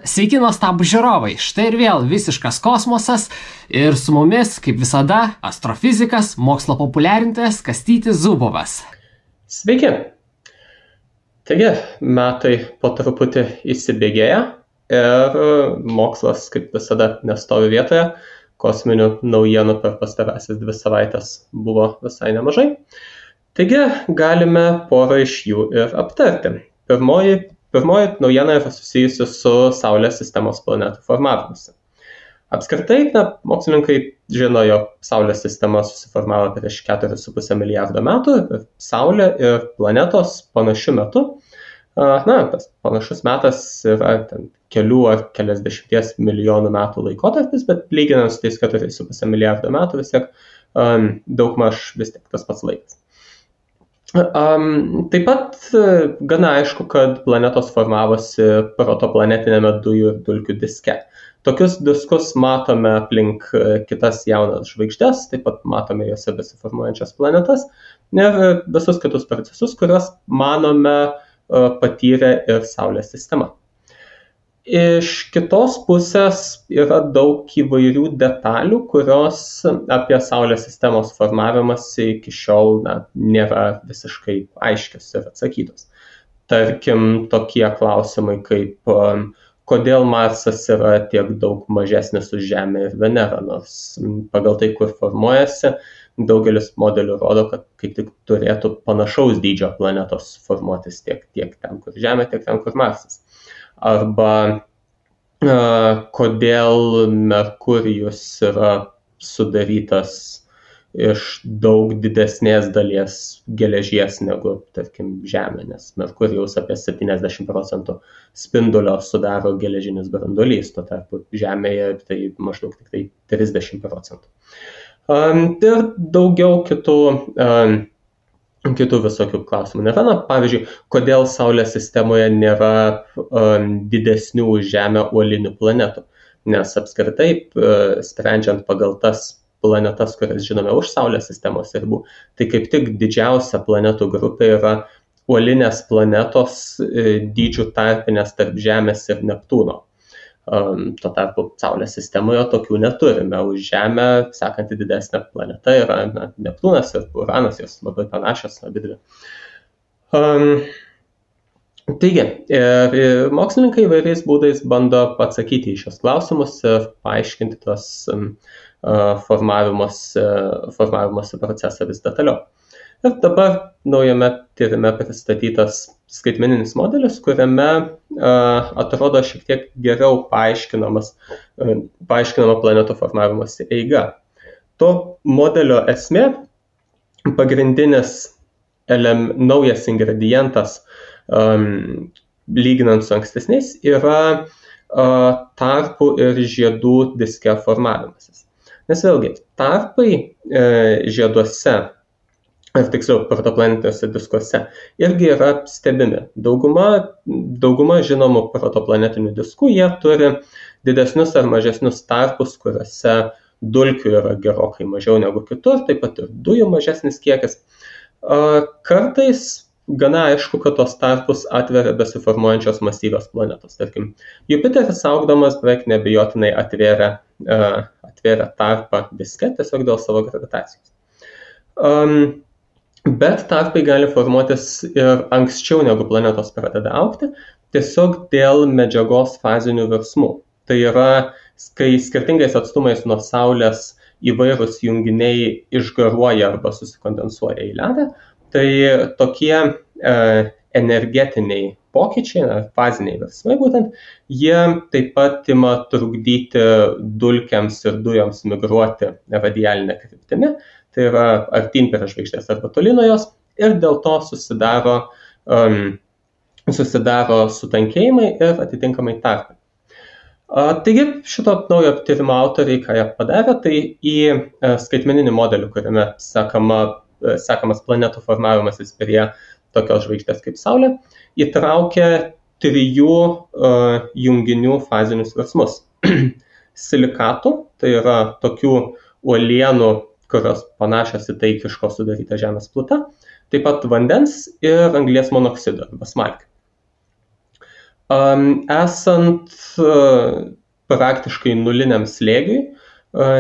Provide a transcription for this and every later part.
Sveiki nuostabūs žiūrovai, štai ir vėl visiškas kosmosas ir su mumis, kaip visada, astrofizikas, mokslo populiarintojas Kastytis Zubovas. Sveiki. Taigi, metai po truputį įsibėgėja ir mokslas, kaip visada, nestovi vietoje. Kosminių naujienų per pastarąsias 2 savaitės buvo visai nemažai. Taigi, galime porą iš jų ir aptarti. Pirmoji naujiena yra susijusi su Saulės sistemos planetų formavimusi. Apskritai, mokslininkai žino, jog Saulės sistema susiformavo prieš 4,5 milijardo metų ir Saulė ir planetos panašiu metu. Tas panašus metas yra kelių ar keliasdešimties milijonų metų laikotarpis, bet lyginant su tais 4,5 milijardo metų vis tiek daugmaž vis tiek tas pats laikas. Taip pat gana aišku, kad planetos formavosi protoplanetinėme dujų ir dulkių diske. Tokius diskus matome aplink kitas jaunas žvaigždes, taip pat matome juose besiformuojančias planetas ir visus kitus procesus, kuriuos manome patyrė ir Saulės sistema. Iš kitos pusės yra daug įvairių detalių, kurios apie Saulės sistemos formavimąsi iki šiol nėra visiškai aiškios ir atsakytos. Tarkim, tokie klausimai kaip kodėl Marsas yra tiek daug mažesnis už Žemę ir Venerą, nors pagal tai, kur formuojasi, daugelis modelių rodo, kad kaip tik turėtų panašaus dydžio planetos formuotis tiek ten, kur Žemė, tiek ten, kur Marsas. Arba kodėl Merkurijus yra sudarytas iš daug didesnės dalies geležies negu, tarkim, Žemė, nes Merkurijaus apie 70% spindulio sudaro geležinis branduolys, tuo tarpu Žemėje tai maždaug tik tai 30%. Ir daugiau kitų visokių klausimų nėra. Pavyzdžiui, kodėl Saulės sistemoje nėra didesnių už Žemę uolinių planetų? Nes apskritai, sprendžiant pagal tas planetas, kurias žinome už Saulės sistemos ribų, tai kaip tik didžiausia planetų grupė yra uolinės planetos dydžių tarpinės tarp Žemės ir Neptūno. Tuo tarpu Saulės sistemoje tokių neturime. Už Žemę sekanti didesnė planeta yra Neptūnas ir Uranas, jos labai panašios abidvi. Taigi, mokslininkai įvairiais būdais bando atsakyti į šios klausimus ir paaiškinti tuos formavimosi procesą vis detaliau. Ir dabar naujame tyrime pristatytas skaitmeninis modelis, kuriame atrodo šiek tiek geriau paaiškinama planetų formavimosi eiga. To modelio esmė, pagrindinis naujas ingredientas, lyginant su ankstesniais, yra tarpų ir žiedų diske formavimasis. Nes vėlgi, tarpai žieduose, ar tiksliau protoplanetiniuose diskuose, irgi yra stebimi. Dauguma žinomų protoplanetinių diskų, jie turi didesnius ar mažesnius tarpus, kuriuose dulkių yra gerokai mažiau negu kitur, taip pat ir dujų mažesnis kiekis. Kartais gana aišku, kad tos tarpus atveria besiformuojančios masyvios planetos. Tarkim, Jupiteris augdamas beveik neabejotinai atvėrė tarpą diske tiesiog dėl savo gravitacijos. Bet tarpai gali formuotis ir anksčiau negu planetos pradeda augti, tiesiog dėl medžiagos fazinių virsmų. Tai yra, kai skirtingais atstumais nuo Saulės įvairūs junginiai išgaruoja arba susikondensuoja į ledą, tai tokie energetiniai pokyčiai, faziniai virsmai būtent, jie taip pat ima trukdyti dulkėms ir dujoms migruoti radialinę kryptimi. Tai yra artyn prie žvaigždės arba toli nuo jos ir dėl to susidaro sutankėjimai ir atitinkamai tarpai. Taigi šito naujo tyrimo autoriai, ką jie padarė, tai į skaitmeninį modelį, kuriame sekamas planetų formavimasis prie tokios žvaigždės kaip Saulė, įtraukė 3 junginių fazinius virsmus. Silikatų, tai yra tokių uolienų, kurios panašios į tai, iš ko sudaryta Žemės pluta, taip pat vandens ir anglies monoksido arba smalkių. Esant praktiškai nuliniam slėgiui,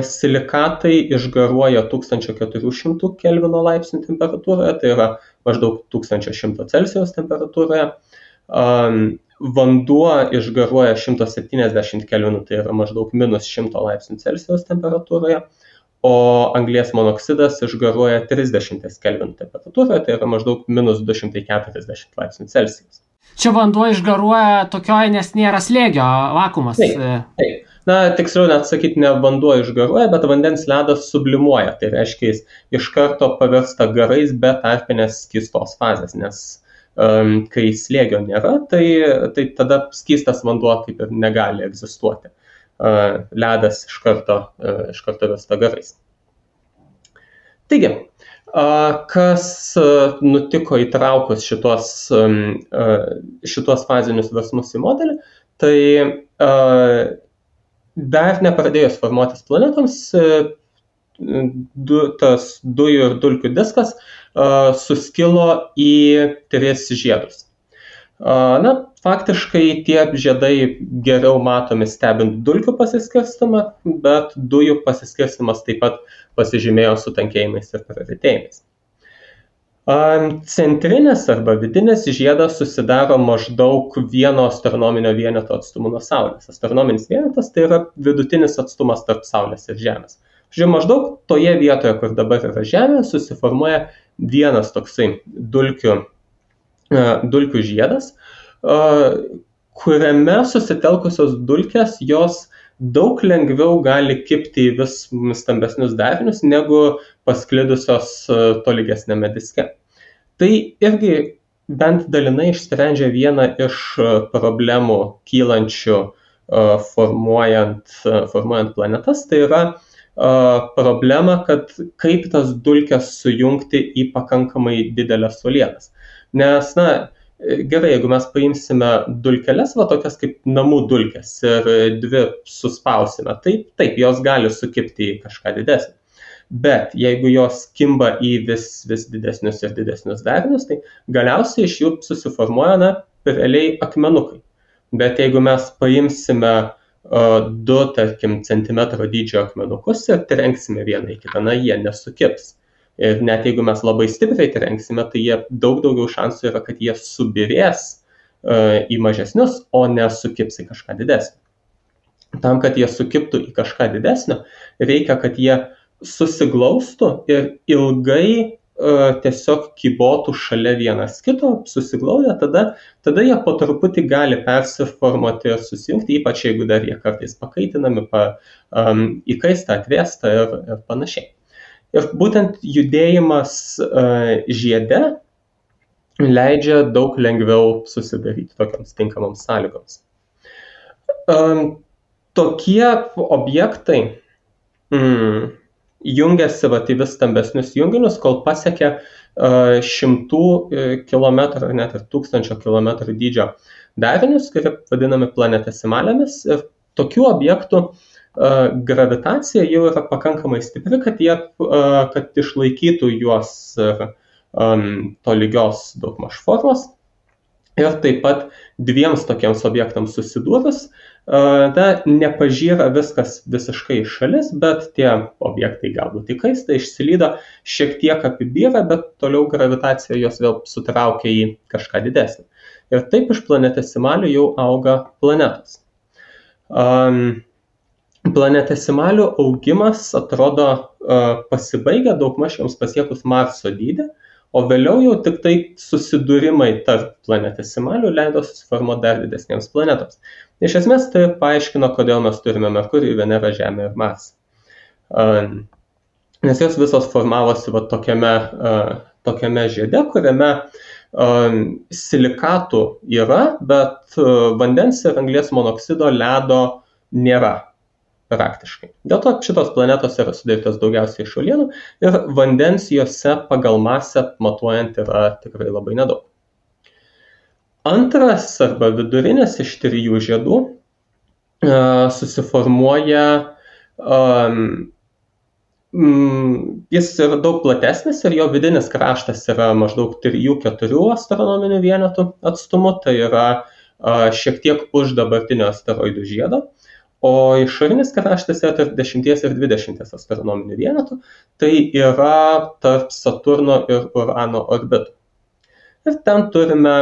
silikatai išgaruoja 1400 Kelvino laipsnių temperatūroje, tai yra maždaug 1100 Celsijaus temperatūroje. Vanduo išgaruoja 170 Kelvinų, tai yra maždaug minus 100 laipsnių Celsijaus temperatūroje, o anglies monoksidas išgaruoja 30 Kelvinų temperatūroje, tai yra maždaug minus 240 laipsnių Celsijaus. Čia vanduo išgaruoja tokioje, nes nėra slėgio, vakuumas. Taip. Na, tiksliau net sakyti, ne vanduo išgaruoja, bet vandens ledas sublimuoja. Tai reiškia, jis iš karto pavirsta garais be tarpinės skystos fazės, nes kai slėgio nėra, tai tada skystas vanduo kaip ir negali egzistuoti. Ledas iš karto virsta garais. Taigi, kas nutiko įtraukus šitos fazinius virsmus į modelį, tai dar nepradėjus formuotis planetoms, tas dujų ir dulkių diskas suskilo į 3 žiedus. Na, faktiškai tie žiedai geriau matomi stebint dulkių pasiskirstimą, bet dujų pasiskirstimas taip pat pasižymėjo sutankėjimais ir praretėjimais. Centrinis arba vidinis žiedas susidaro maždaug 1 astronominio vieneto atstumu nuo Saulės. Astronominis vienetas tai yra vidutinis atstumas tarp Saulės ir Žemės. Maždaug toje vietoje, kur dabar yra Žemė, susiformuoja vienas toksai dulkių žiedas, kuriame susitelkusios dulkės jos daug lengviau gali kibti į vis stambesnius darinius negu pasklidusios tolygesnėme diske. Tai irgi bent dalinai išsprendžia vieną iš problemų kylančių formuojant planetas, tai yra problema, kad kaip tas dulkes sujungti į pakankamai didelės uolienas. Nes, gerai, jeigu mes paimsime dulkeles, tokias kaip namų dulkes ir 2 suspausime, taip, jos gali sukibti į kažką didesnį. Bet jeigu jos kimba į vis didesnius ir didesnius darinius, tai galiausiai iš jų susiformuoja realiai akmenukai. Bet jeigu mes paimsime 2, tarkim, centimetro dydžio akmenukus ir trenksime vieną į kitą, jie nesukibs. Ir net jeigu mes labai stipriai trenksime, tai jie daug daugiau šansų yra, kad jie subirės į mažesnius, o nesukibs į kažką didesnio. Tam, kad jie sukibtų į kažką didesnio, reikia, kad jie susiglaustų ir ilgai tiesiog kybotų šalia vienas kito, susiglaudę, tada jie po truputį gali persiformuoti ir susijungti, ypač jeigu dar jie kartais pakaitinami, įkaista, atvėsta ir panašiai. Ir būtent judėjimas žiede leidžia daug lengviau susidaryti tokiams tinkamoms sąlygoms. Tokie objektai jungiasi į vis stambesnius junginius, kol pasiekia 100 km ar net ir 1000 km dydžio darinius, kurie vadinami planetesimalėmis. Ir tokių objektų gravitacija jau yra pakankamai stipri, kad išlaikytų juos tolygios daugmaž formos. Ir taip pat 2 tokiems objektams susidūrus, nepažyra viskas visiškai iš šalis, bet tie objektai galbūt įkaista, išsilydo, šiek tiek apibyra, bet toliau gravitacija jos vėl sutraukia į kažką didesnį. Ir taip iš planetesimalių jau auga planetos. Planetesimalių augimas atrodo pasibaigia daugmaž joms pasiekus Marso dydį, o vėliau jau tik tai susidūrimai tarp planetesimalių leido susiformuoti dar didesniems planetoms. Iš esmės tai paaiškino, kodėl mes turime Merkurijų, Venerą, Žemę ir Marsą. Nes jos visos formavosi tokiame žiede, kuriame silikatų yra, bet vandens ir anglies monoksido ledo nėra praktiškai. Dėl to šitos planetos yra sudarytos daugiausiai iš uolienų ir vandens jose pagal masę matuojant yra tikrai labai nedaug. Antras arba vidurinis iš 3 žiedų susiformuoja, jis yra daug platesnis ir jo vidinis kraštas yra maždaug 3-4 astronominių vienetų atstumu, tai yra šiek tiek už dabartinio asteroidų žiedo, o išorinis kraštas yra tarp 10 ir 20 astronominių vienetų, tai yra tarp Saturno ir Urano orbitų. Ir ten turime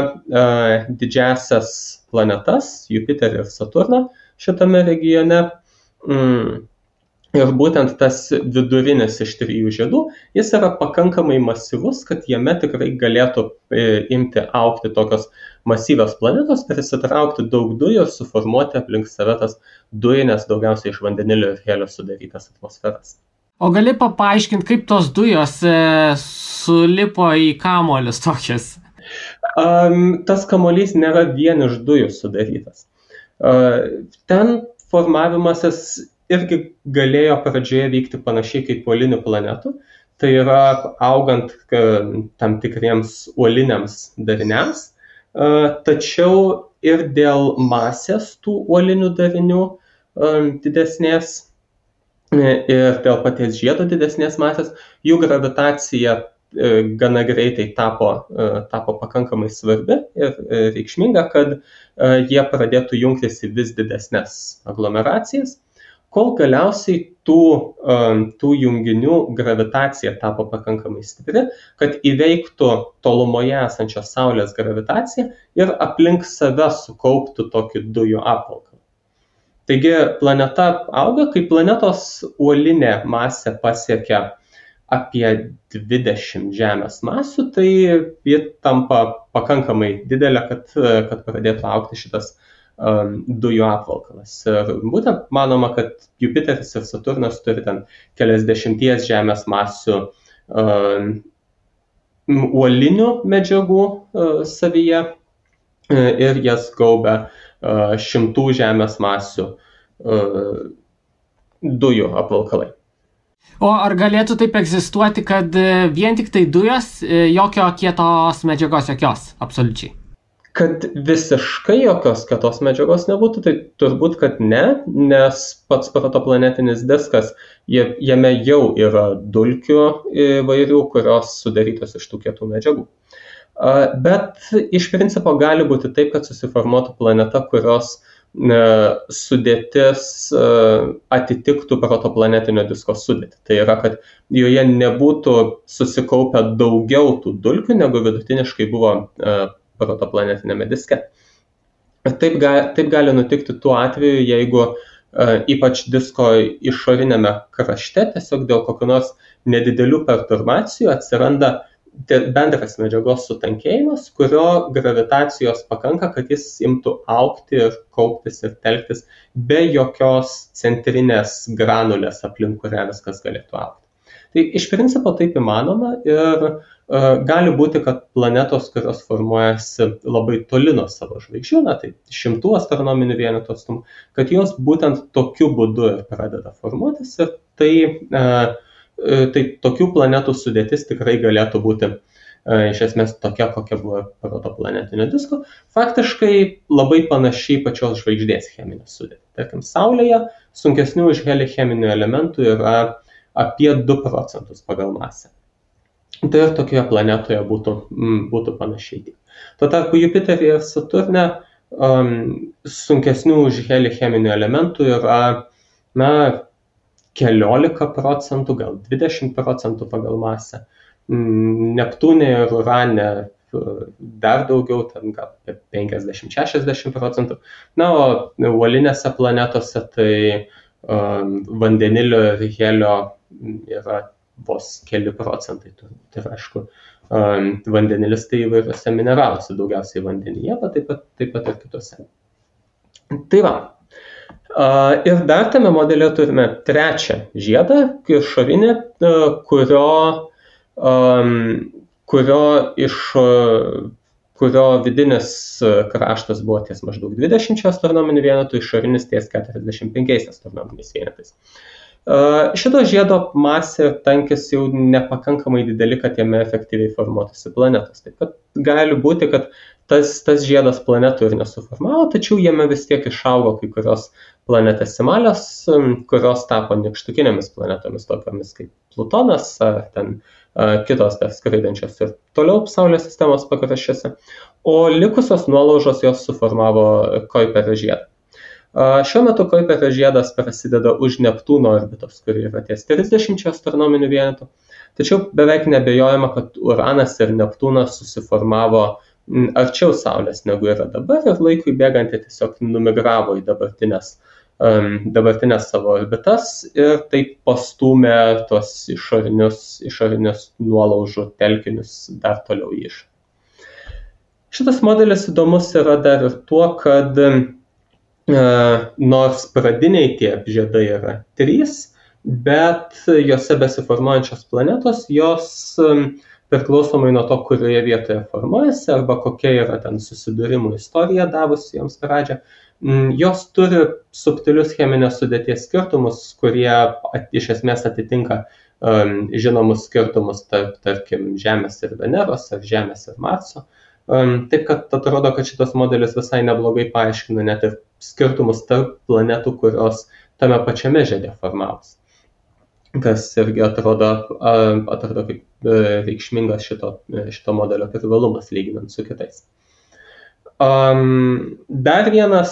didžiasias planetas, Jupiterį ir Saturną šitame regione. Ir būtent tas vidurinis iš 3 žiedų, jis yra pakankamai masyvus, kad jame tikrai galėtų imti augti tokios masyvios planetos, prisitraukti daug dujų ir suformuoti aplink save tas dujines, daugiausiai iš vandenilio ir helio sudarytas atmosferas. O gali paaiškinti, kaip tos dujos sulipo į kamuolius tokias? Tas kamuolys nėra vien iš dujų sudarytas. Ten formavimasis irgi galėjo pradžioje vykti panašiai kaip uolinių planetų, tai yra augant tam tikriems uoliniams dariniams, tačiau ir dėl masės tų uolinių darinių didesnės ir dėl paties žiedo didesnės masės, jų gravitacija gana greitai tapo pakankamai svarbi ir reikšminga, kad jie pradėtų jungtis į vis didesnės aglomeracijas, kol galiausiai tų junginių gravitacija tapo pakankamai stipri, kad įveiktų tolumoje esančios Saulės gravitaciją ir aplink save sukauptų tokį dujų apvalkalą. Taigi planeta auga, kai planetos uolinė masė pasiekia apie 20 Žemės masių, tai ji tampa pakankamai didelė, kad pradėtų augti šitas dujų apvalkalas. Ir būtent manoma, kad Jupiteris ir Saturnas turi ten keliasdešimties Žemės masių uolinių medžiagų savyje ir jas gaubia 100 Žemės masių dujų apvalkalai. O ar galėtų taip egzistuoti, kad vien tik tai dujos, jokio kietos medžiagos jokios, absoliučiai? Kad visiškai jokios kietos medžiagos nebūtų, tai turbūt, kad ne, nes pats protoplanetinis diskas, jame jau yra dulkių įvairių, kurios sudarytos iš tų kietų medžiagų. Bet iš principo gali būti taip, kad susiformuotų planeta, kurios sudėtis atitiktų protoplanetinio disko sudėtį. Tai yra, kad joje nebūtų susikaupę daugiau tų dulkių, negu vidutiniškai buvo protoplanetinėme diske. Taip gali nutikti tuo atveju, jeigu ypač disko išorinėme krašte tiesiog dėl kokių nors nedidelių perturbacijų atsiranda bendras medžiagos sutankėjimas, kurio gravitacijos pakanka, kad jis imtų augti ir kauptis ir telktis be jokios centrinės granulės, aplink kurią viskas galėtų augti. Tai iš principo taip įmanoma ir gali būti, kad planetos, kurios formuojasi labai toli nuo savo žvaigždžių, tai 100 astronominių vienetų atstumų, kad jos būtent tokiu būdu ir pradeda formuotis ir tai tokių planetų sudėtis tikrai galėtų būti iš esmės tokia, kokia buvo protoplanetinio disko. Faktiškai labai panašiai pačios žvaigždės cheminė sudėtį. Tarkim, Saulėje sunkesnių už helį cheminių elementų yra apie 2% pagal masę. Tai ir tokioje planetoje būtų panašiai. Tuo tarpu Jupiteryje ir Saturne sunkesnių už helį cheminių elementų yra keliolika procentų, gal 20% pagal masę. Neptūne ir Urane dar daugiau, ten gal 50-60%. O uolinėse planetose tai vandenilio ir helio yra vos keli procentai. Tai aišku, vandenilis tai įvairiuose mineraluose, daugiausiai vandenyje, bet taip pat ir kitose. Tai va. Ir dar tame modelėje turime trečią žiedą, išorinį, kurio vidinis kraštas buvo ties maždaug 20 astronominių vienetų, išorinis ties 45 astronominiais vienetais. Šito žiedo masė ir tankis jau nepakankamai dideli, kad jame efektyviai formuotųsi planetos. Taip pat gali būti, kad tas žiedas planetų ir nesuformavo, tačiau jame vis tiek išaugo kai kurios planetesimalios, kurios tapo nykštukinėmis planetomis, tokiamis kaip Plutonas ar ten kitos dar skraidančios ir toliau Saulės sistemos pakraščiuose, o likusios nuolaužos jos suformavo Kuiperio žiedą. Šiuo metu Kuiperio žiedas prasideda už Neptūno orbitos, kuri yra ties 30 astronominių vienetų, tačiau beveik nebejojama, kad Uranas ir Neptūnas susiformavo arčiau Saulės negu yra dabar ir laikui bėgant jie tiesiog numigravo į dabartinės savo orbitas ir taip pastūmė tuos išorinius nuolaužų telkinius dar toliau į išorę. Šitas modelis įdomus yra dar ir tuo, kad nors pradiniai tie žiedai yra 3, bet jose besiformuojančios planetos, jos priklausomai nuo to, kurioje vietoje formuojasi arba kokia yra ten susidūrimų istorija davusi joms pradžią, jos turi subtilius cheminės sudėties skirtumus, kurie iš esmės atitinka žinomus skirtumus tarkim Žemės ir Veneros ar Žemės ir Marso. Taip, kad atrodo, kad šitas modelis visai neblogai paaiškina net ir skirtumus tarp planetų, kurios tame pačiame žiede formavosi. Kas irgi atrodo kaip reikšmingas šito modelio privalumas lyginant su kitais. Dar viena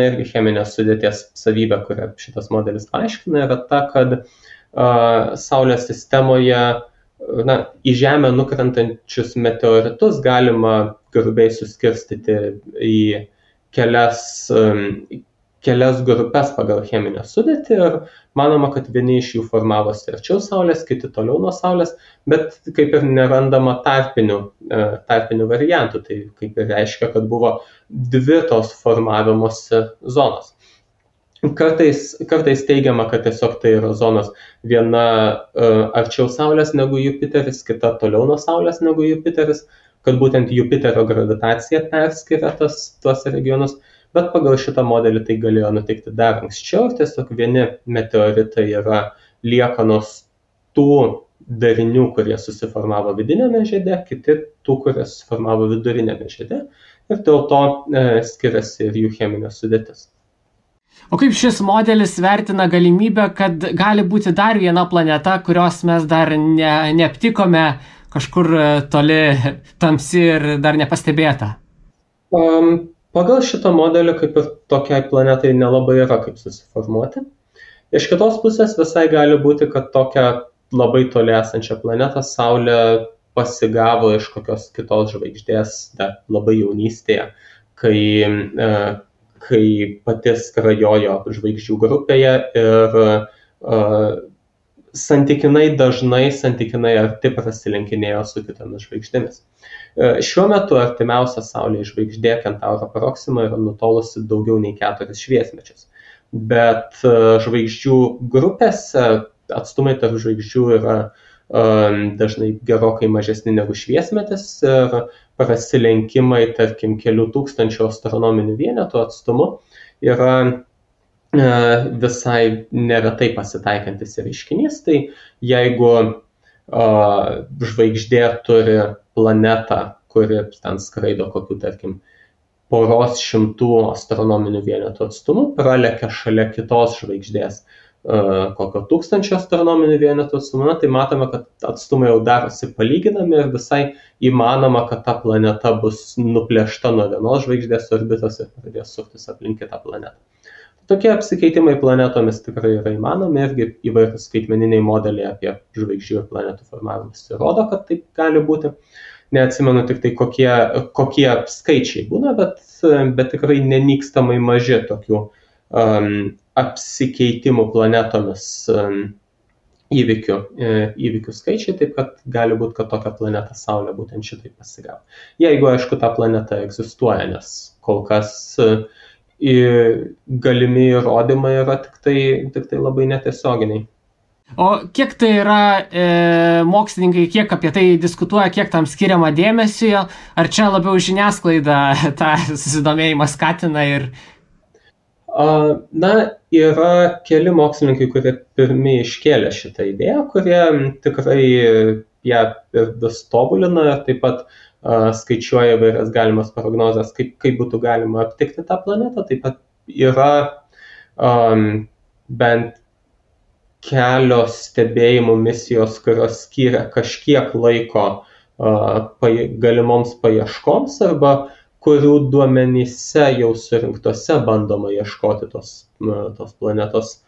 irgi cheminės sudėties savybė, kurią šitas modelis paaiškina, yra ta, kad Saulės sistemoje į Žemę nukrentančius meteoritus galima grubiai suskirstyti į kelias grupes pagal cheminę sudėtį ir manoma, kad vieni iš jų formavosi arčiau Saulės, kiti toliau nuo Saulės, bet kaip ir nerandama tarpinių variantų, tai kaip ir reiškia, kad buvo 2 tos formavimosi zonos. Kartais teigiama, kad tiesiog tai yra zonos viena arčiau Saulės negu Jupiteris, kita toliau nuo Saulės negu Jupiteris, kad būtent Jupiterio gravitacija perskiria tuos regionus, bet pagal šitą modelį tai galėjo nutikti dar anksčiau ir tiesiog vieni meteoritai yra liekanos tų darinių, kurie susiformavo vidinėme žiede, kiti tų, kurie susiformavo vidurinėme žiede ir dėl to skiriasi ir jų cheminė sudėtis. O kaip šis modelis vertina galimybę, kad gali būti dar viena planeta, kurios mes dar neaptikome kažkur toli tamsi ir dar nepastebėta? Pagal šitą modelį kaip ir tokiai planetai nelabai yra kaip susiformuoti. Iš kitos pusės visai gali būti, kad tokią labai toli esančią planetą Saulė pasigavo iš kokios kitos žvaigždės dar labai jaunystėje, kai pati skrajojo žvaigždžių grupėje ir santykinai dažnai, santykinai arti prasilenkinėjo su kitomis žvaigždėmis. Šiuo metu artimiausia Saulės žvaigždė Kentauro Proxima yra nutolusi daugiau nei 4 šviesmečius. Bet žvaigždžių grupėse atstumai tarp žvaigždžių yra dažnai gerokai mažesni negu šviesmetis ir prasilenkimai, tarkim, kelių tūkstančių astronominių vienetų atstumu yra visai neretai pasitaikantis reiškinys. Tai jeigu žvaigždė turi planetą, kuri ten skraido kokių, tarkim, poros šimtų astronominių vienetų atstumu, pralekia šalia kitos žvaigždės kokio 1000 astronominių vienetų atstumu, tai matome, kad atstumai jau darosi palyginami ir visai įmanoma, kad ta planeta bus nuplėšta nuo vienos žvaigždės orbitos ir pradės suktis aplink kitą planetą. Tokie apsikeitimai planetomis tikrai yra įmanomi, irgi įvairūs skaitmeniniai modeliai apie žvaigždžių ir planetų formavimus rodo, kad taip gali būti. Neatsimenu tik tai kokie skaičiai būna, bet tikrai nenykstamai maži tokių apsikeitimų planetomis įvykių skaičiai, taip kad gali būti, kad tokia planeta Saulė būtent šitai pasigavo. Jeigu, aišku, ta planeta egzistuoja, nes kol kas galimi įrodymai yra tik tai labai netiesioginiai. O kiek tai yra mokslininkai, kiek apie tai diskutuoja, kiek tam skiriama dėmesio, ar čia labiau žiniasklaida tą susidomėjimą skatina ir... Yra keli mokslininkai, kurie pirmi iškėlė šitą idėją, kurie tikrai ją vis tobulina ir taip pat skaičiuoja įvairias galimas prognozes, kaip būtų galima aptikti tą planetą. Taip pat yra bent kelios stebėjimų misijos, kurios skiria kažkiek laiko galimoms paieškoms arba kurių duomenyse jau surinktose bandoma ieškoti tos planetos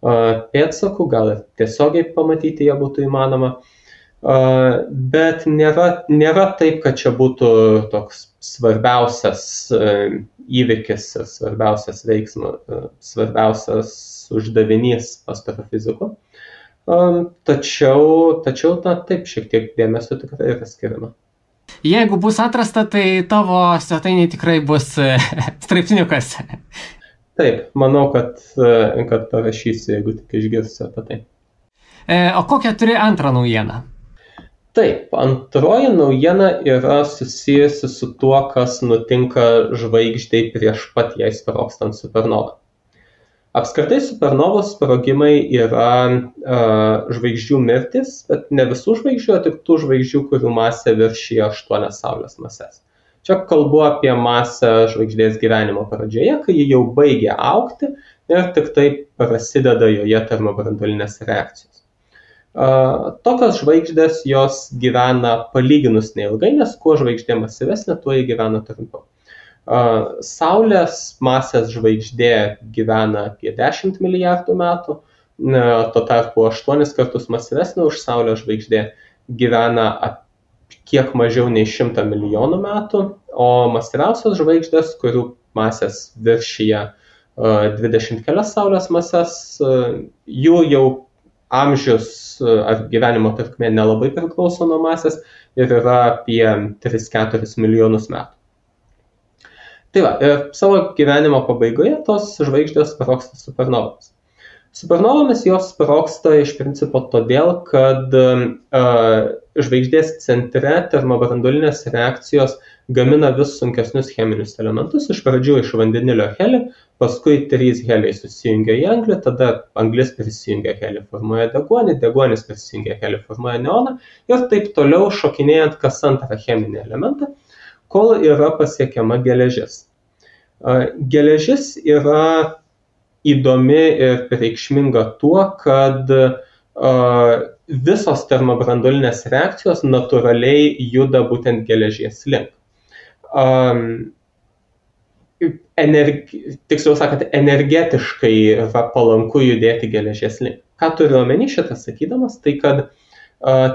pėdsakų, gal ir tiesiogiai pamatyti ją būtų įmanoma. Bet nėra taip, kad čia būtų toks svarbiausias įvykis ir svarbiausias veiksmas, svarbiausias uždavinys astrofizikų. Tačiau taip, šiek tiek dėmesio tikrai yra skiriama. Jeigu bus atrasta, tai tavo svetainė tikrai bus straipsniukas. Taip, manau, kad parašysiu, jeigu tik išgirsiu apie tai. O kokią turi antrą naujieną? Taip, antroji naujiena yra susijusi su tuo, kas nutinka žvaigždei prieš pat jai sprogstant supernovą. Apskritai supernovos sprogimai yra žvaigždžių mirtis, bet ne visų žvaigždžių, o tik tų žvaigždžių, kurių masė viršyja 8 Saulės mases. Čia kalbu apie masę žvaigždės gyvenimo pradžioje, kai ji jau baigia augti ir tik tai prasideda joje termobranduolinės reakcijos. Tokios žvaigždės jos gyvena palyginus neilgai, nes kuo žvaigždė masyvesnė, tuo ji gyvena trumpiau. Saulės masės žvaigždė gyvena apie 10 milijardų metų, tuo tarpu 8 kartus masyvesnė už Saulės žvaigždė gyvena kiek mažiau nei 100 milijonų metų, o masyviausios žvaigždės, kurių masės viršyje 20 kelias Saulės mases, jų jau amžius ar gyvenimo trukmė nelabai priklauso nuo masės ir yra apie 3-4 milijonus metų. Tai va, ir savo gyvenimo pabaigoje tos žvaigždės sprogsta supernovomis. Supernovomis jos sprogsta iš principo todėl, kad žvaigždės centre termobranduolinės reakcijos gamina vis sunkesnius cheminius elementus, iš pradžių iš vandenilio helį, paskui 3 heliai susijungia į anglį, tada anglis prisijungia helį, formuoja deguonį, deguonis prisijungia helį, formuoja neoną ir taip toliau šokinėjant kas antrą cheminį elementą, kol yra pasiekiama geležis. Geležis yra įdomi ir reikšminga tuo, kad visos termobranduolinės reakcijos natūraliai juda būtent geležies link. Tiksliau sakant, energetiškai yra palanku judėti geležies link. Ką turiu omeny šitą sakydamas, tai kad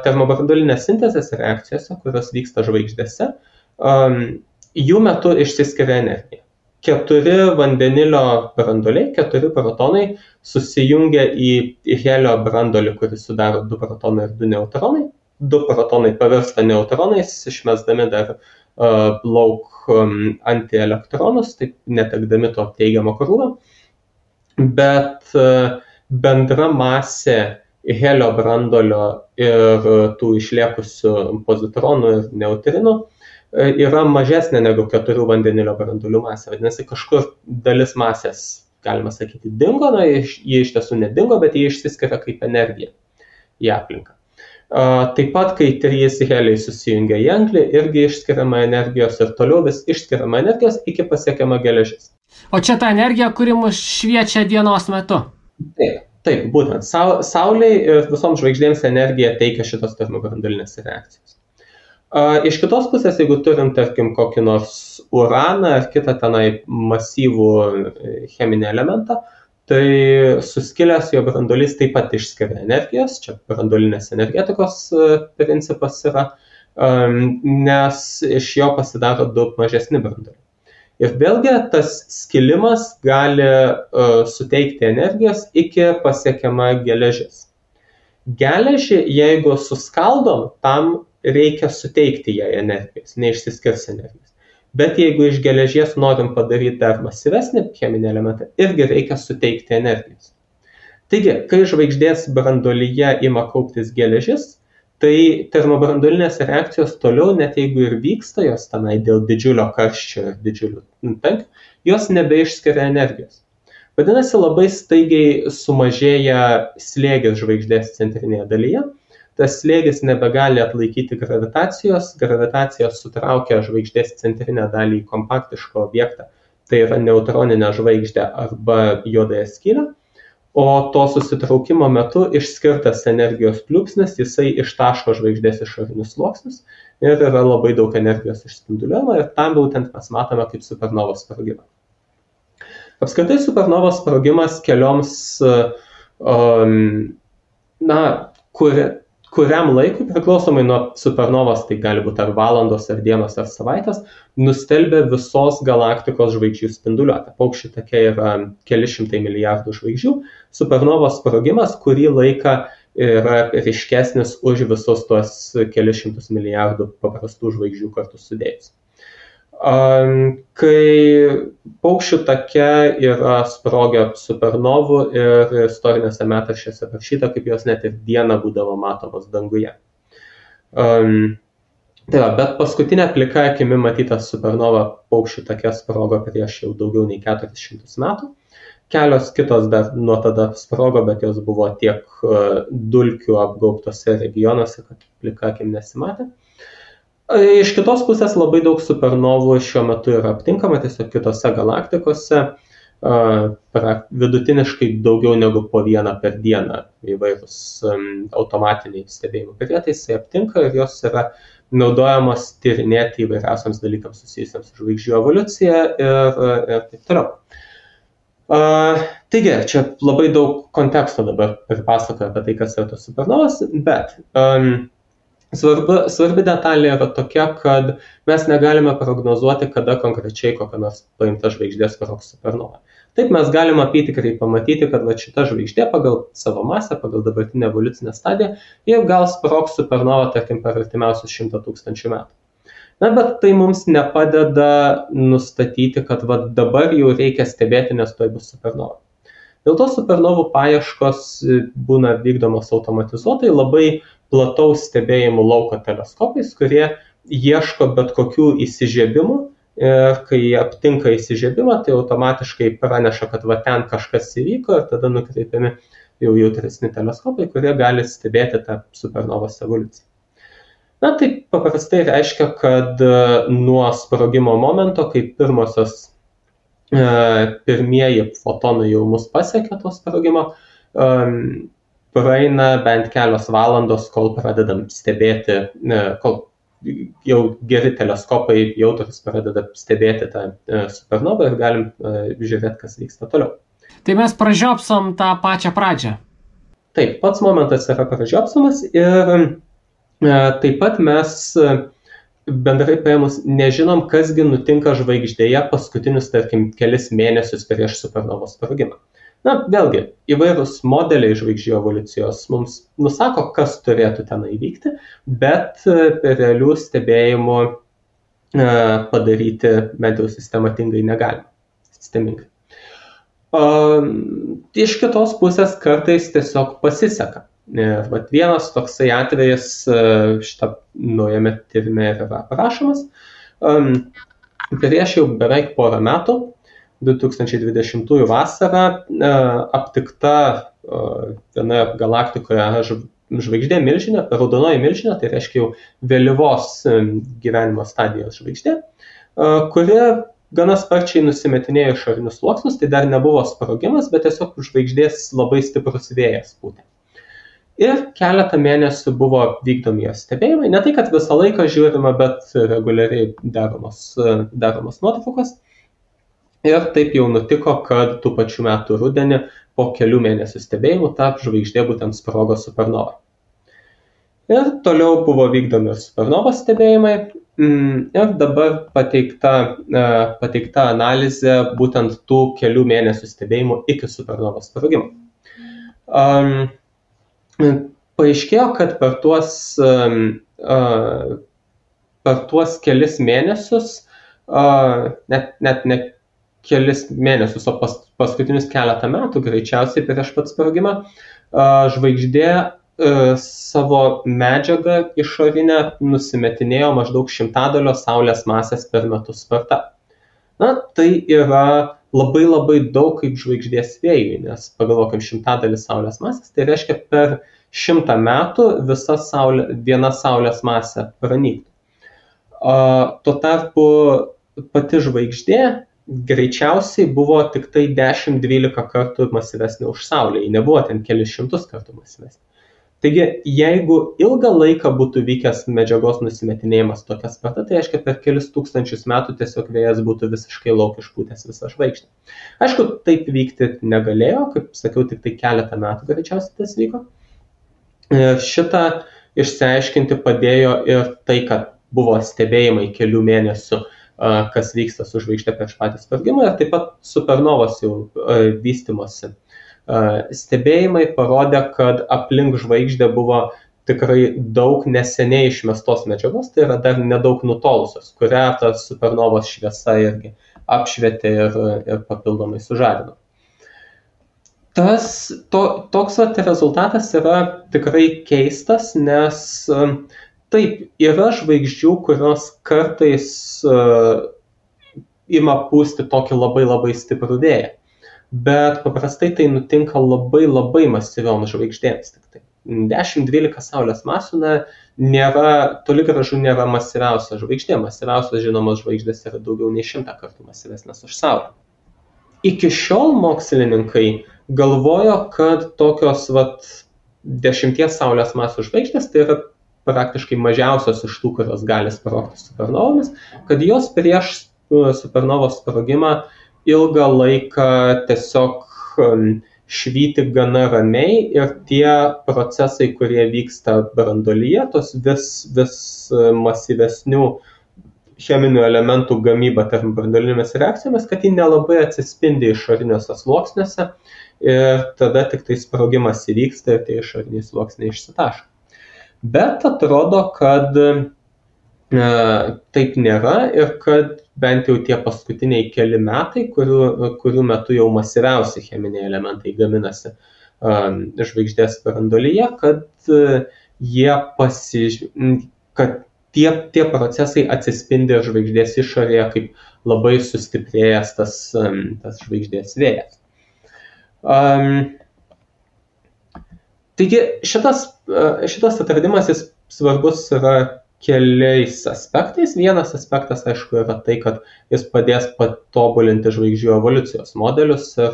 termobranduolinės sintezės reakcijose, kurios vyksta žvaigždėse, jų metu išsiskiria energija. 4 vandenilio branduoliai, 4 protonai susijungia į helio branduolį, kuris sudaro 2 protonai ir 2 neutronai. 2 protonai pavirsta neutronais, išmesdami dar lauk antielektronus, taip netekdami to teigiamo krūvio. Bet bendra masė helio branduolio ir tų išliekusių pozitronų ir neutrinų yra mažesnė negu 4 vandenilio branduolių masė. Vadinasi, kažkur dalis masės, galima sakyti, dingo, jie iš tiesų nedingo, bet jie išsiskiria kaip energija į aplinką. Taip pat, kai 3 heliai susijungia į anglį, irgi išskiriama energijos ir toliau vis išskiriama energijos iki pasiekiama geležis. O čia ta energija, kuri mus šviečia dienos metu? Taip, būtent. Saulei ir visoms žvaigždėms energiją teikia šitos termobranduolinės reakcijos. Iš kitos pusės, jeigu turim, tarkim, kokį nors uraną ar kitą tenai masyvų cheminį elementą, tai suskilęs jo branduolys taip pat išskiria energijos, čia branduolinės energetikos principas yra, nes iš jo pasidaro daug mažesni branduoliai. Ir vėlgi tas skilimas gali suteikti energijos iki pasiekiama geležis. Geležį, jeigu suskaldom, tam reikia suteikti jai energijos, neišsiskirs energijos. Bet jeigu iš geležies norim padaryti dar masyvesnį cheminį elementą, irgi reikia suteikti energijos. Taigi, kai žvaigždės branduolyje ima kauptis geležis, tai termobranduolinės reakcijos toliau, net jeigu ir vyksta jos tenai dėl didžiulio karščio ir didžiulių tankių, jos nebeišskiria energijos. Vadinasi, labai staigiai sumažėja slėgis žvaigždės centrinėje dalyje, tas slėgis nebegali atlaikyti gravitacijos, gravitacija sutraukia žvaigždės centrinę dalį į kompaktišką objektą, tai yra neutroninę žvaigždę arba juodąją skylę, o to susitraukimo metu išskirtas energijos pliūpsnis, jisai ištaško žvaigždės išorinius sluoksnius ir yra labai daug energijos išspinduliuojama ir tam būtent mes matome kaip supernovos sprogimą. Apskritai supernovos sprogimas kelioms, kuriam laikui, priklausomai nuo supernovos, tai gali būti ar valandos, ar dienos, ar savaitės, nustelbia visos galaktikos žvaigždžių spinduliuotę. Paukščių take yra keli šimtai milijardų žvaigždžių. Supernovos sprogimas kurį laiką yra ryškesnis už visus tuos keli šimtus milijardų paprastų žvaigždžių kartu sudėjus. Kai paukščių take yra sprogę supernovų ir istorinėse metraščiuose parašyta, kaip jos net ir dieną būdavo matomos danguje. Bet paskutinė plika akimi matyta supernova paukščių take sprogo prieš jau daugiau nei 400 metų. Kelios kitos dar nuo tada sprogo, bet jos buvo tiek dulkių apgaubtose regionuose, kad plika akim nesimatė. Iš kitos pusės labai daug supernovų šiuo metu yra aptinkama tiesiog kitose galaktikose, vidutiniškai daugiau negu po vieną per dieną įvairūs automatiniai stebėjimų prietaisai aptinka ir jos yra naudojamos tyrinėti įvairiausiams dalykams susijusiams su žvaigždžių evoliucija ir taip toliau. Taigi, čia labai daug konteksto dabar pripasakoju apie tai, kas yra tos supernovos, bet svarbi detalė yra tokia, kad mes negalime prognozuoti, kada konkrečiai kokia nors paimta žvaigždė sprogs supernova. Taip mes galime apytikriai pamatyti, kad šita žvaigždė pagal savo masę, pagal dabartinę evoliucinę stadiją, jau gal sprogs supernova, tarkim, per artimiausius 100 000 metų. Bet tai mums nepadeda nustatyti, kad dabar jau reikia stebėti, nes tuoj bus supernova. Dėl to supernovų paieškos būna vykdomos automatizuotai labai plataus stebėjimų lauko teleskopais, kurie ieško bet kokių įsižiebimų ir kai jie aptinka įsižiebimą, tai automatiškai praneša, kad ten kažkas įvyko ir tada nukreipiami jau jautresni teleskopai, kurie gali stebėti tą supernovos evoliuciją. Tai paprastai reiškia, kad nuo sprogimo momento, kai pirmieji fotonai jau mus pasiekia to sprogimo, praeina bent kelios valandos, kol pradedam stebėti, kol jau geri teleskopai jautrūs pradeda stebėti tą supernovą ir galim žiūrėti, kas vyksta toliau. Tai mes pražiopsom tą pačią pradžią. Taip, pats momentas yra pražiopsomas ir taip pat mes bendrai paėmus nežinom, kasgi nutinka žvaigždėje paskutinius, tarkim, kelis mėnesius prieš supernovos sprogimą. Vėlgi, įvairūs modeliai žvaigždžių evoliucijos mums nusako, kas turėtų ten įvykti, bet realių stebėjimų padaryti bent jau sistematingai negalima. Sistemingai. Iš kitos pusės kartais tiesiog pasiseka. Ir vienas toksai atvejis šitą naujame tyrime yra aprašomas. Prieš jau beveik porą metų, 2020 vasarą, aptikta vienoje galaktikoje žvaigždė milžinė, raudonoji milžinė, tai reiškia jau vėlyvos gyvenimo stadijos žvaigždė, kuri gana sparčiai nusimetinėjo išorinius sluoksnius, tai dar nebuvo sprogimas, bet tiesiog žvaigždės labai stiprus vėjas pūtė. Ir keletą mėnesių buvo vykdomi jos stebėjimai, ne tai, kad visą laiką žiūrima, bet reguliariai daromos nuotraukos. Ir taip jau nutiko, kad tų pačių metų rudenį po kelių mėnesių stebėjimų ta žvaigždė būtent sprogo supernova. Ir toliau buvo vykdomi supernovos stebėjimai ir dabar pateikta analizė būtent tų kelių mėnesių stebėjimų iki supernovos sprogimo. Paaiškėjo, kad per tuos kelis mėnesius, net ne kelis mėnesius, o paskutinius keletą metų, greičiausiai prieš pat sprogimą, žvaigždė savo medžiagą išorinę nusimetinėjo maždaug 100 Saulės masės per metus sparta. Tai yra labai daug kaip žvaigždės vėjui, nes pagalvokim 100 Saulės masės, tai reiškia per 100 metų viena Saulės masė pranyktų. Tuo tarpu pati žvaigždė greičiausiai buvo tik tai 10-12 kartų masyvesnė už Saulę, ji nebuvo ten kelis šimtus kartų masyvesnė. Taigi, jeigu ilgą laiką būtų vykęs medžiagos nusimetinėjimas tokia sparta, tai reiškia per kelis tūkstančius metų tiesiog vėjas būtų visiškai lauk išpūtęs visą žvaigždę. Aišku, taip vykti negalėjo, kaip sakiau, tik tai keletą metų greičiausiai tas vyko. Šitą išsiaiškinti padėjo ir tai, kad buvo stebėjimai kelių mėnesių, kas vyksta su žvaigždė prieš patį sprogimą, ir taip pat supernovos jau vystymosi. Stebėjimai parodė, kad aplink žvaigždę buvo tikrai daug neseniai išmestos medžiagos, tai yra dar nedaug nutolusios, kurią ta supernovos šviesa irgi apšvietė ir papildomai sužadino. Toks rezultatas yra tikrai keistas, nes taip, yra žvaigždžių, kurios kartais ima pūsti tokį labai labai stiprų vėją, bet paprastai tai nutinka labai labai masyvioms žvaigždėms. 10-12 Saulės masių toli gražu nėra masyviausia žvaigždė. Masyviausios žinomos žvaigždės yra daugiau nei 100 kartų masyvesnės už Saulę. Iki šiol mokslininkai galvojo, kad tokios 10 Saulės masių žvaigždės, tai yra praktiškai mažiausios iš tų, kurios gali sprogti supernovomis, kad jos prieš supernovos sprogimą ilgą laiką tiesiog švyti gana ramiai ir tie procesai, kurie vyksta branduolyje, tos vis masyvesnių cheminių elementų gamyba tarp branduolinėmis reakcijomis, kad ji nelabai atsispindi išoriniuose sluoksniuose ir tada tik tai sprogimas įvyksta ir tie išoriniai sluoksniai išsitaško. Bet atrodo, kad taip nėra ir kad bent jau tie paskutiniai keli metai, kurių metu jau masyviausi cheminiai elementai gaminasi žvaigždės branduolyje, kad tie procesai atsispindi žvaigždės išorėje kaip labai sustiprėjęs tas žvaigždės vėjas. Taigi šitas atradimas jis svarbus yra keliais aspektais. Vienas aspektas, aišku, yra tai, kad jis padės patobulinti žvaigždžių evoliucijos modelius ir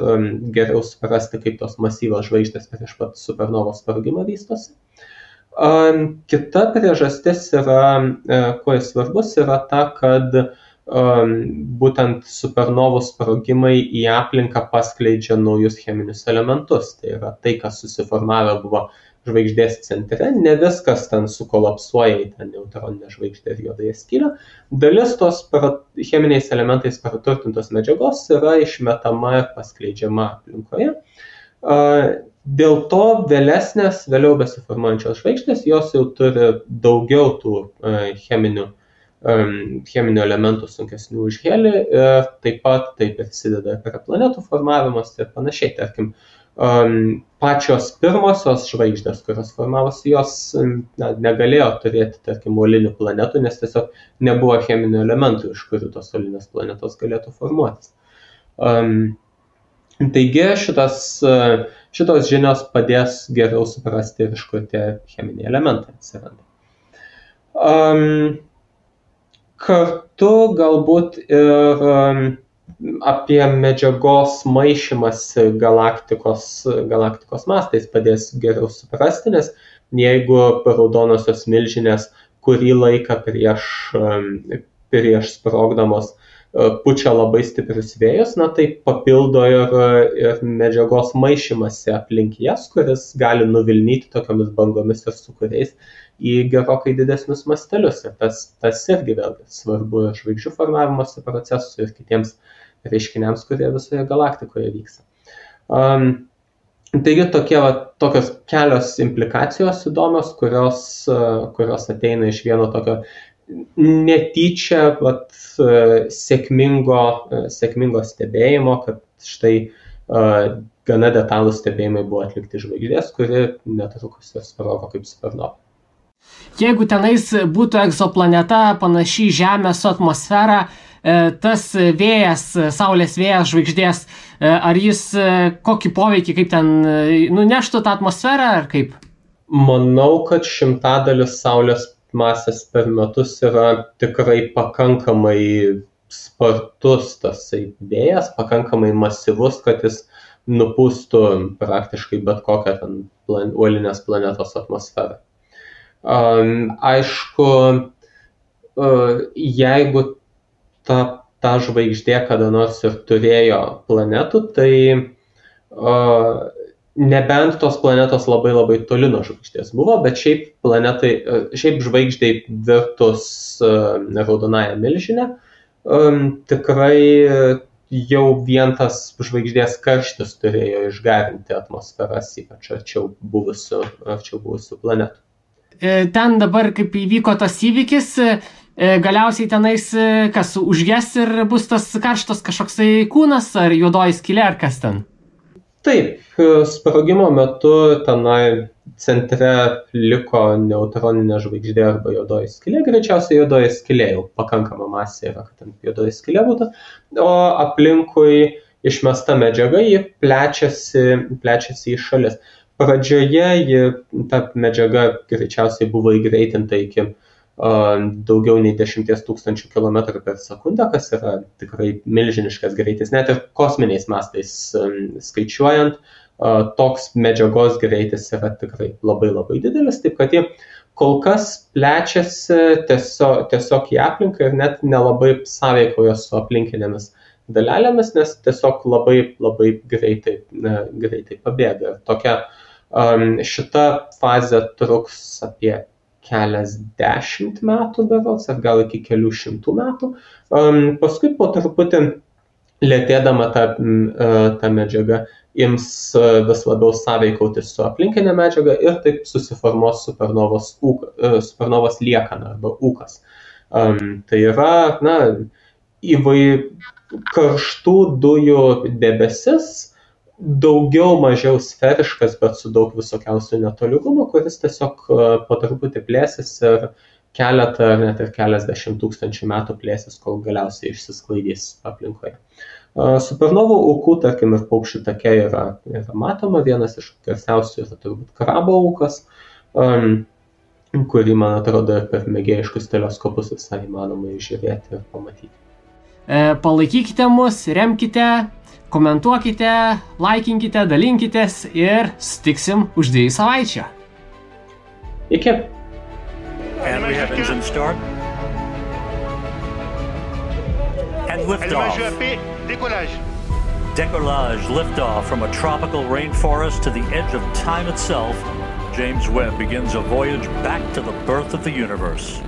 geriau suprasti, kaip tos masyvios žvaigždės prieš pat supernovos sprogimą vystosi. Kita priežastis yra, kuo jis svarbus, yra ta, kad būtent supernovų sprogimai į aplinką paskleidžia naujus cheminius elementus. Tai yra tai, kas susiformavę buvo žvaigždės centre, ne viskas ten sukolapsuoja į tą neutroninę žvaigždę ir juodąją skylę. Dalis tos cheminiais elementais praturtintos medžiagos yra išmetama ir paskleidžiama aplinkoje. Dėl to vėliau besiformuojančios žvaigždės, jos jau turi daugiau tų cheminių elementų sunkesnių už helį ir taip pat tai prisideda prie planetų formavimas ir panašiai. Tarkim, pačios pirmosios žvaigždės, kurios formavosi, jos negalėjo turėti, tarkim, uolinių planetų, nes tiesiog nebuvo cheminių elementų, iš kurių tos uolinės planetos galėtų formuotis. Taigi šitos žinios padės geriau suprasti, iš kur tie cheminiai elementai atsiranda. Kartu galbūt ir apie medžiagos maišymąsi galaktikos mastais padės geriau suprasti, nes jeigu raudonosios milžinės kurį laiką prieš sprogdamos pučia labai stiprius vėjus, tai papildo ir medžiagos maišymąsi aplink jas, kuris gali nuvilnyti tokiomis bangomis ir sūkuriais į gerokai didesnius mastelius. Ir tas irgi vėlgi svarbu ir žvaigždžių formavimosi procesui ir kitiems reiškiniams, kurie visoje galaktikoje vyksta. Taigi tokios kelios implikacijos įdomios, kurios ateina iš vieno tokio netyčia sėkmingo stebėjimo, kad štai gana detalūs stebėjimai buvo atlikti žvaigždės, kuri netrukus ir sprogo kaip supernova. Jeigu tenais būtų egzoplaneta panaši Žemės su atmosfera, tas vėjas, Saulės vėjas žvaigždės, ar jis kokį poveikį, kaip ten nuneštų tą atmosferą, ar kaip? Manau, kad 100 Saulės masės per metus yra tikrai pakankamai spartus tasai vėjas, pakankamai masyvus, kad jis nupūstų praktiškai bet kokią ten uolinės planetos atmosferą. Aišku, jeigu ta žvaigždė kada nors ir turėjo planetų, tai nebent tos planetos labai labai toli nuo žvaigždės buvo, bet šiaip žvaigždei virtus raudonąją milžinę, tikrai jau vien tas žvaigždės karštis turėjo išgarinti atmosferas, ypač arčiau buvusių planetų. Ten dabar, kaip įvyko tas įvykis, galiausiai tenais kas užges ir bus tas karštas kažkoksai kūnas ar juodoji skylė ar kas ten? Taip, sprogimo metu tenai centre liko neutroninė žvaigždė arba juodoji skylė, greičiausiai juodoji skylė jau pakankama masė yra, kad ten juodoji skylė būtų, o aplinkui išmesta medžiaga, ji plečiasi į šalis. Pradžioje ta medžiaga greičiausiai buvo įgreitinta iki daugiau nei 10 000 km per sekundę, kas yra tikrai milžiniškas greitis. Net ir kosminiais mastais skaičiuojant, toks medžiagos greitis yra tikrai labai labai didelis, taip kad ji kol kas plečiasi tiesiog į aplinką ir net nelabai sąveikoja su aplinkinėmis dalelėmis, nes tiesiog labai labai greitai pabėga. Šita fazė truks apie keliasdešimt metų berods, ar gal iki kelių šimtų metų. Paskui po truputį lėtėdama ta medžiaga ims vis labiau sąveikauti su aplinkinė medžiaga ir taip susiformuos supernovos liekana arba ūkas. Tai yra karštų dujų debesis, daugiau mažiau sferiškas, bet su daug visokiausių netolygumų, kuris tiesiog po truputį plėsis ir keletą, net ir keliasdešimt tūkstančių metų plėsis, kol galiausiai išsisklaidys aplinkoje. Supernovų ūkų, tarkim, ir paukščių take yra matoma, vienas iš garsiausių yra turbūt Krabo ūkas, kurį, man atrodo, per mėgėjiškus teleskopus visai įmanoma žiūrėti ir pamatyti. Palaikykite mus, remkite, komentuokite, laikinkite, dalinkitės ir sutiksim už 2 savaičių. Iki. And we have engine start. And liftoff. Décollage, liftoff from a tropical rainforest to the edge of time itself. James Webb begins a voyage back to the birth of the universe.